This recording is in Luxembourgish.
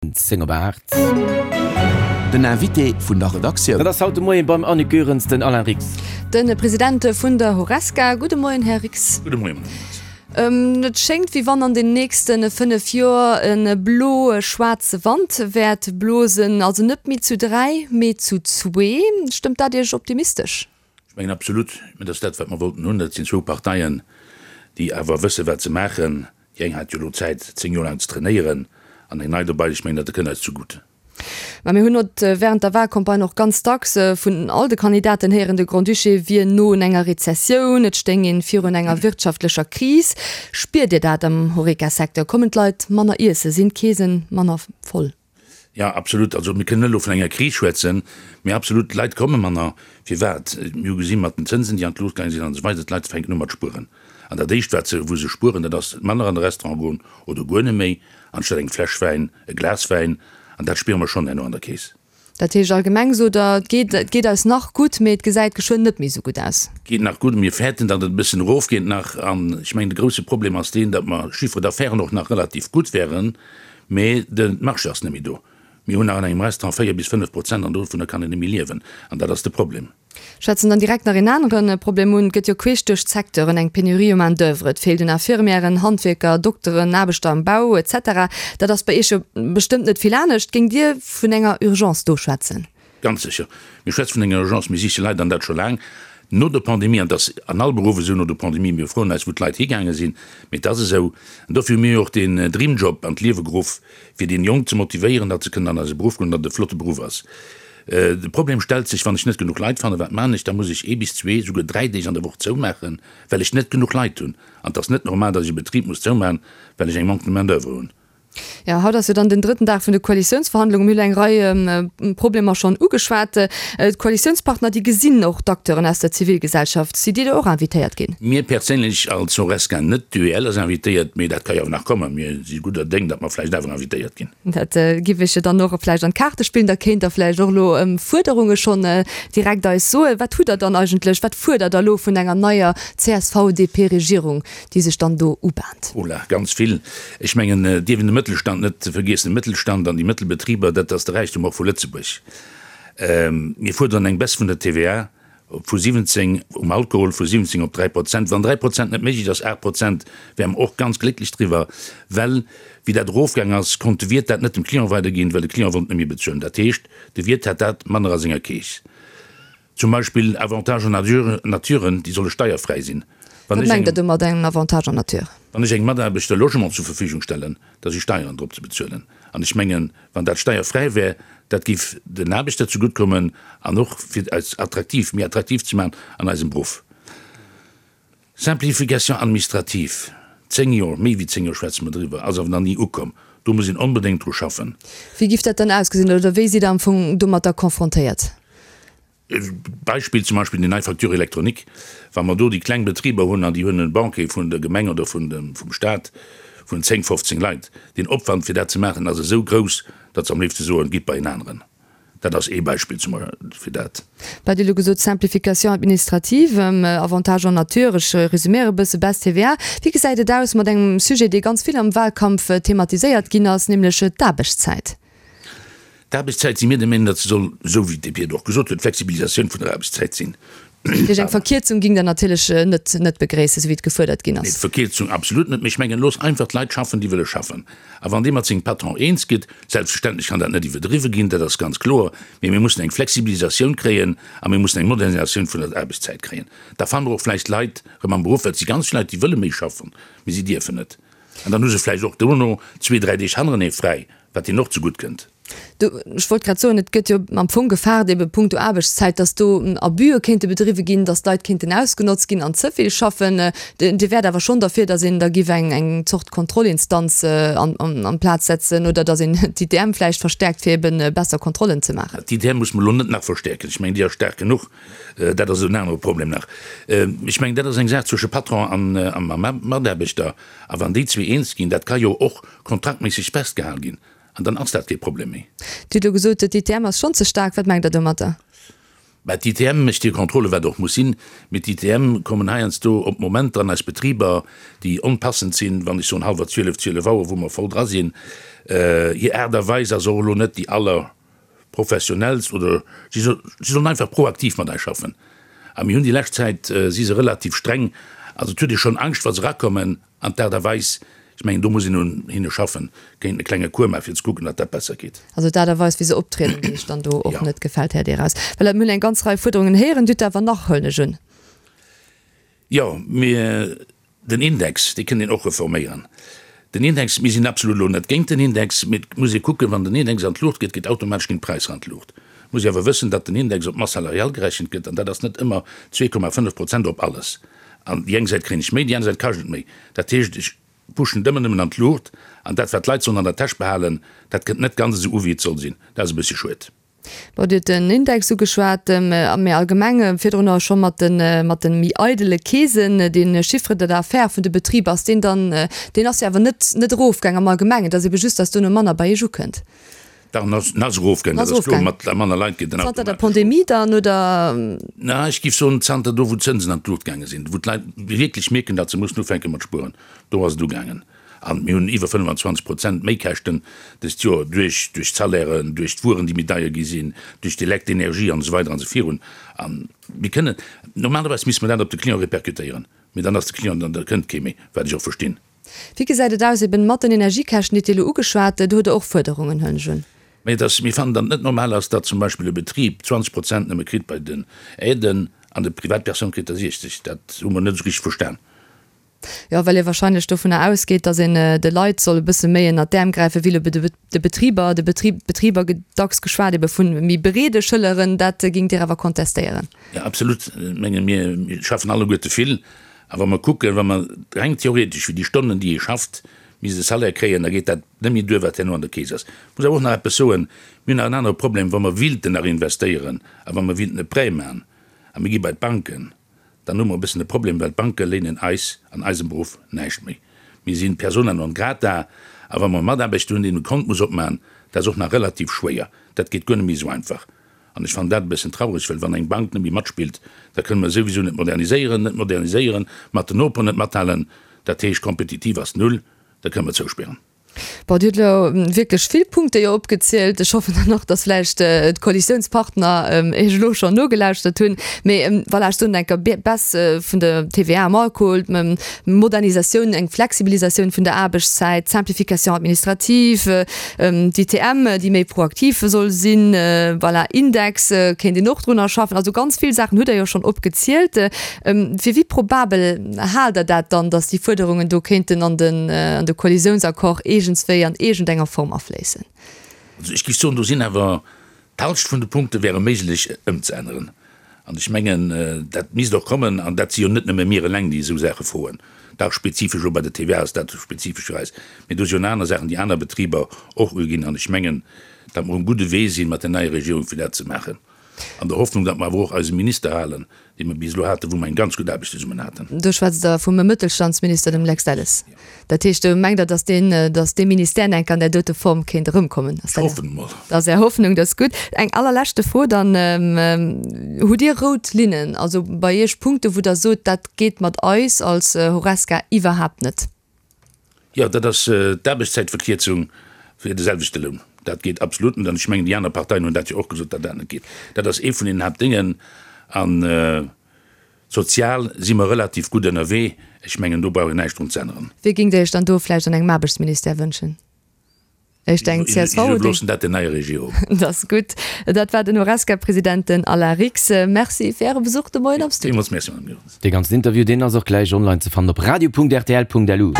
10 op 8. Den Invité vun der Redaktioun. Dat ass haut de Moien beim Annick Goerens den Alain Rix. De President vun der Horesca. Gudde Moien, Här Rix. Gudde Moien, Madame Goerens. Et schéngt, wéi wann an den nächste 5 Joer e blo-schwaarze Wand wäert blosen. Also net méi zu 3, mee zu zwee. Stëmmt dat Iech optimistesch? Ech mengen absolut. Mä dat ass dat, wat mer wollten hunn. Dat sinn zwou Parteien, déi awer wëssen, wat se maachen. Déi eng hat jo elo Zäit, 10 Joer laang ze trainéieren, an eng nei dobei. Ech mengen, dat kënnt eis zegutt. Mä mir hunn haut während der Wahlcampagne och ganz dacks vun all de Kandidaten héieren, de Grand-Duché wier no un enger Rezessioun, et stéing een virun enger wirtschaftlecher Kris. Spiert Dir dat am Horeca-Secteur? Kommen d'Leit manner iessen? Sinn d'Keesen manner voll? Jo, absolut. Also mir kënnen net elo vun enger Kris schwätzen, mee absolut, d'Leit komme manner. Firwat? Mir hu gesi mat den Zënsen, déi an d'Luucht gaange sinn an esou weider, d'Leit fänken u mat spueren. An dat Éischt, wat se, wou se spueren, dat ass manner an de Restaurant goen oder guer net méi, anstatt eng Fläsch Wäin, e Glas Wäin. An dat spiere mer schonn herno an der Keess. Dat heescht allgemeng sot Der, et geet, et geet eis nach gutt, mee et gesäit geschwënn net méi esou gutt aus. Et geet nach gutt, mir fäerten, datt et e bëssen erofgeet nach. An ech mengen, de grousse Problem ass deen, datt mer Chiffre d'affaires och nach relativ gutt wären, mee de Marché ass net méi do. Mir hunn nach an engem Restaurant 4 bis 5 Prozent an dovunner kann een net méi liewen. An dat ass de Problem. Schwätzen dann direkt nach een anere Problem un. Et gëtt jo queesch duerch d'Secteuren eng Penurie u Main d'oeuvre. Et feelt un Infirmièren, Handwierker, Dokteren, Aarbechter am Bau, etc. Dat ass bei Iech jo bestëmmt net vill anescht. Géingt Dir vun enger Urgence do schwätzen? Ganz sécher. Mir schwätze vun enger Urgence. Mir siche Leit, an dat scho laang no der Pandemie. An et ass an all Beruff esou no der Pandemie. Mir froen eis, wou d'Leit higaange sinn. Mee et ass esou. An dofir hu mir jo och deen Dreamjob an d'Liewe geruff, fir déi Jonk ze motivéieren, datt se kënnen an eise Beruff goen, datt et e flotte Beruff ass. De Problem stellt sech, wann ech net genuch Leit fannen, wat man ech? Da muss ech ee bis zwee, souguer dräi Deeg an der Woch zoumaachen, well ech net genuch Leit hunn. An et ass net normal, datt ech e Betrib muss zoumaachen, well ech eng Manque de main d'oeuvre hunn. Jo, haut ass jo dann den drëtten Dag vun de Koalitiounsverhandlungen. Mir hunn eng Rei Problemer schonn ugeschwat. D'Koalitiounspartner, déi gesinn och d'Acteuren aus der Zivilgesellschaft. Sidd Dir do och invitéiert ginn? Mir perséinlech als Horesca net. D'UEL ass invitéiert, mee dat ka jo awer nach kommen. Mir si gudder Déng, datt mer vläicht awer invitéiert ginn. Dat giff ech jo dann och vläicht an d'Kaarte spillen. Da kéint Der vläicht och elo Fuerderunge schonn direkt eis soen. Wat hutt Der dann eigentlech, wat fuerdert Der elo vun enger neier CSV-DP-Regierung, déi sech dann do ubahnt? Ola, Ganz vill. Ech mengen, et dierf een de Mëttelstand net vergiessen. De Mëttelstand an déi Mëttelbetriber, dat ass de Räichtum och vu Lëtzebuerg. Mir fuerderen eng Baisse vun der TVA. Vu 17 um Alkohol, vu 17 op 3 Prozent. Wann 3 Prozent net méiglech ass, 8 Prozent, wäre mer och ganz glécklech driwwer, well wéi dat erofgaang ass, konnt de Wiert dat net dem Client weiderginn, well de Client wollt net méi bezuelen. Dat heescht, de Wiert hat dat manner a senger Keess. Zum Beispill Avantages en nature, naturen, déi solle steierfräi sinn. Wat mengt Der do mat engem Avantage en nature? Wann ech engem Mataarbechter e Logement zur Verfügung stellen, da si Steieren drop ze bezuelen. An ech mengen, wann dat steierfräi wär, dat géif den Aarbechter zegutt kommen an och fir eis attraktiv, méi attraktiv ze maachen an eisem Beruff. Simplification administrative, zéng Joer, méi wéi zéng Joer schwätze mer driwwer, ass awer nach ni ukomm. Do muss een onbedéngt dru schaffen. Wéi giff dat dann ausgesinn oder wéi sidd Der am Fong domatter confrontéiert? Beispill zum Beispill déi nei Facture électronique, wa mer do déi kleng Betriber hunn an déi hunn e Banquier vun der Gemeng oder vun dem, vum Stat vun 10, 15 Leit, deen Opwand fir dat ze maachen ass esou grouss, datt se am léifste soen, gitt bei en aneren. Dat ass ee Beispill zum fir dat. Wat Dir elo gesot, Simplification administrative, Avantages en nature, ech resüméiere e bësse, Baisse TVA. Wéi gesäit et aus mat engem Sujet, dee ganz vill am Wahlkampf thematiséiert ginn ass, nämlech d'Aarbechtszäit? D'Aarbechtszäit si mir der Meenung, datt se soll, esou wéi d'DP et och gesot huet, d'Flexibilisatioun vun der Aarbechtszäit sinn. Dat heescht, eng Verkierzung ging Der natierlech net net begréissen, esou wéi et gefuerdert ginn ass? Nee, d'Verkierzung absolut net. Mee ech mengen, looss einfach d'Leit schaffen, déi wëlle schaffen. A wann dee mat sengem Patron eens gëtt, selbstverständlech kann dat net iwwerdriwwe ginn, dat ass ganz kloer, mee mir mussen eng Flexibilisatioun kréien a mir mussen eng Modernisatioun vun der Aarbechtszäit kréien. Da fanne mer och vläicht Leit erëm am Beruff, well et si ganz vill Leit, déi wëlle méi schaffen, mee si dierfen net. An dann hu se vläicht och dono zwee, dräi Deeg hannerenee fräi, wat hinnen och zegutt kënnt. Do, ech wollt grad soen, et gëtt jo am Fong gefaart, ebe punkto Aarbechtszäit, dass do Abüe kéinte bedriwwe ginn, dass d'Leit kéinten ausgenotzt ginn an ze vill schaffen. Dir wäert awer schonn derfir, dass een da giff eng, eng Zort Kontrollinstanz an, an, an d'Plaz setzen oder dass een d'ITM vläicht verstärkt, fir ebe besser Kontrollen ze maachen. D'ITM muss mer elo net nach verstärken. Ech mengen, déi ass staark genuch. Dat ass en anere Problem nach. Ech mengen, dat ass eng Saach zwësche Patron an a Mataarbechter. A wann déi zwee eens ginn, dat ka jo och kontraktméisseg festgehal ginn, an dann ass dat kee Problem méi. Dir hutt elo gesot, d'ITM ass schonn ze staark. Wat mengt Der domatter? Mä d'ITM mécht hir Contrôle, wat och muss sinn. Mee d'ITM kommen heiansdo op Momenter an eis Betriber, déi onpassend sinn, wann ech soen hallwer 12, 12 Auer, wou mer voll dra sinn. Hir Aart a Weis ass och elo net déi allerprofessionellst oder si sollen einfach proaktiv mat eis schaffen. A mir hunn déi lescht Zäit, si se relativ streng, also et huet ee schonn Angscht, wa se erakommen. An d'Aart a Weis, ech mengen, do muss een un hinne schaffen, kéinten e klenge Cours maachen, fir ze kucken, datt dat besser geet. Also d'Aart a Weis, wéi se optrieden, déi Iech dann do och net gefält, Här Deraus. Well mir hunn eng ganz Rei Fuerderungen héieren. Dir hutt der awer nach, huelen ech un. Jo, mir, den Index, dee kënnt een och reforméieren. Den Index, mir sinn absolut elo net géint den Index, mee et muss ee kucken, wann den Index an d'Luucht geet, geet automatesch ginn d'Präisser an d'Luucht. Et muss ee awer wëssen, datt den Index op d'Masse salariale gerechent gëtt, an dat ass net ëmmer 2,5 Prozent op alles. An déi eng Säit kréien ech méi, déi aner Säit kascht et méi. Dat heescht, ech pushen et ëmmer nëmmen an d'Luucht, an dat, wat d'Leit sollen an der Täsch behalen, dat kënnt net ganz esou u wéi et soll sinn. Dat ass e bëssche schued. Bon, Dir hutt den Index ugeschwat, mee allgemeng virdrunner scho mat de mat de méi eidele Keesen, dee Chiffre d'affaires vun de Betriber, ass deen dann, deen ass jo awer net net erofgaang am Allgemengen, et ass ebe just, datt duerno manner bei Iech ukënnt. Dach, en ass, en ass erofgaangen, dat ass kloer, mat manner Leit geet en Zanter der automatesch erof. Pandemie dann, oder? Na, ech géif soen, zanter do, wou d'Zënsen an d'Luucht gaange sinn, wou d'Leit wierklech mierken, datt se mussen ufänke mat spueren, do ass et ugaangen. An mir hunn iwwer 25 Prozent Méikäschten dëst Joer duerch, duerch d'Salairen, duerch d'Wueren, déi méi deier gi sinn, duerch d'Elekt-Energie an esou weider an esou virun. A mir kënnen, normalerweis misste mer dat op de Client répercutéieren, mee dann ass de Client, dann da kënnt kee méi, wat ech och verstinn. Wéi gesäit et aus eben mat den Energiekäschten, déi Dir elo ugeschwat? Do hutt Der och Fuerderungen, huelen ech un. Mä et ass, mir fannen, datt et net normal ass, datt zum Beispill e Betrib 20 Prozent nëmme kritt bei den Aiden an de Privatpersoun kritt der 60. Dat hu mer net esou richteg verstan. Jo, well ee wahrscheinlech dovunner ausgeet, datt een de Leit soll e bësse méi ënnert d'Äerm gräifen, wéi elo de Betriber. De Betrib, d'Betriber gëtt dacks geschwat ebe vu méi breede Schëlleren. Dat géingt Dir awer kontestéieren? Jo, absolut. Ech menge mir schaffen alleguerte vill A wa mer kucken, wa mer reng theoretesch fir déi Stonnen, déi ee schafft, misst e Salaire kréien, da geet dat net méi duer, wat herno an der Keess ass. Ech muss awer och nach eppes soen, Mir hunn nach en anere Problem, Wa mer wilten nach investéieren a wa mer wilten e Prêt maachen a mir gi bei d'Banken, dann hu mer e bëssen e Problem, well d'Banke léinen eis an eisem Beruff näischt méi. Mir si persona non grata a wa mer e Mataarbechter hunn, deen e Kont muss opmaachen, dat ass och nach relativ schwéier. Dat geet guer net méi esou einfach. An ech fannen dat e bëssen traureg, well wann eng Bank net méi matspillt, da kënne mer souwisou net moderniséieren, net moderniséieren, mat den Noperen net mathalen, dat heescht kompetitiv ass null, da kënne mer zouspären. Bon, Dir hutt elo wierklech vill Punkte jo opgezielt. Ech hoffen dann och, datt vläicht d'Koalitiounspartner Iech elo schonn nogelauschtert hunn. Mee voilà, ech soen enker, Baisse vun der TVA am Alkohol, Modernisatioun, eng Flexibilisatioun vun der Aarbechtszäit, Simplification administrative, D'ITM, déi méi proaktiv soll sinn, voilà, Index kéint een och drunner schaffen. Also ganz vill Saachen hutt Der jo schonn opgezielt. Fir wéi probabel haalt Der dat dann, datt déi Fuerderungen do kéinten an den an de Koalitiounsaccord iergendswéi an iergendenger Form afléissen? Also ech géif soen, do sinn awer D'Halscht vun de Punkte wäre méiglech ëmzeänneren. An ech mengen, dat misst och kommen. An dat si jo net nëmme mir eleng, déi esou Saache froen. Dach, spezifesch elo bei der TVA ass dat spezifesch fir eis. Mee do si jo nach aner Saachen, déi aner Betriber och uginn. An ech mengen, datt mer um gudde Wee sinn, mat der neier Regierung, fir dat ze maachen. An der Hoffnung, datt mer awer och eise Minister halen, dee mer bis elo haten, wou mer eng ganz gutt Aarbecht zesummen haten. Do schwätzt Der vum Mëttelstandsminister, dem Lex Delles. Dat heescht, do mengt Der, datt deen, datt dee Ministère enk an där dote Form kéint erëmkommen? Ech hoffen emol. Dat ass Är Hoffnung, dat ass gutt. Eng allerleschte Fro dann, Hutt Dir rout Linnen, also bei Iech Punkte wou Der sot, dat geet mat eis als Horesca iwwerhaapt net? Jo, dat ass d'Aarbechtszäitverkierzung fir de selwechte Loun. Dat geet absolut net. An ech mengen, déi aner Parteien hunn dat jo och gesot, datt dat net geet. Dat ass ee vun den Haaptdéngen. An sozial si mer relativ gutt ënnerwee. Ech mengen, do brauch een näischt drun ze änneren. Wie géingt Der Iech dann do vläicht an engem Aarbechtsministère wënschen? Ech denken csv. Ech iwwerloossen dat der neier Regierung. Dat ass gutt. Dat war den Horesca-President, den Alain Rix. Merci fir Äre Besuch de Moien am Studio. Villmools Merci, Madame Goerens. Dee ganzen Interview, deen ass och gläich online ze fannen op radio.rtl.lu.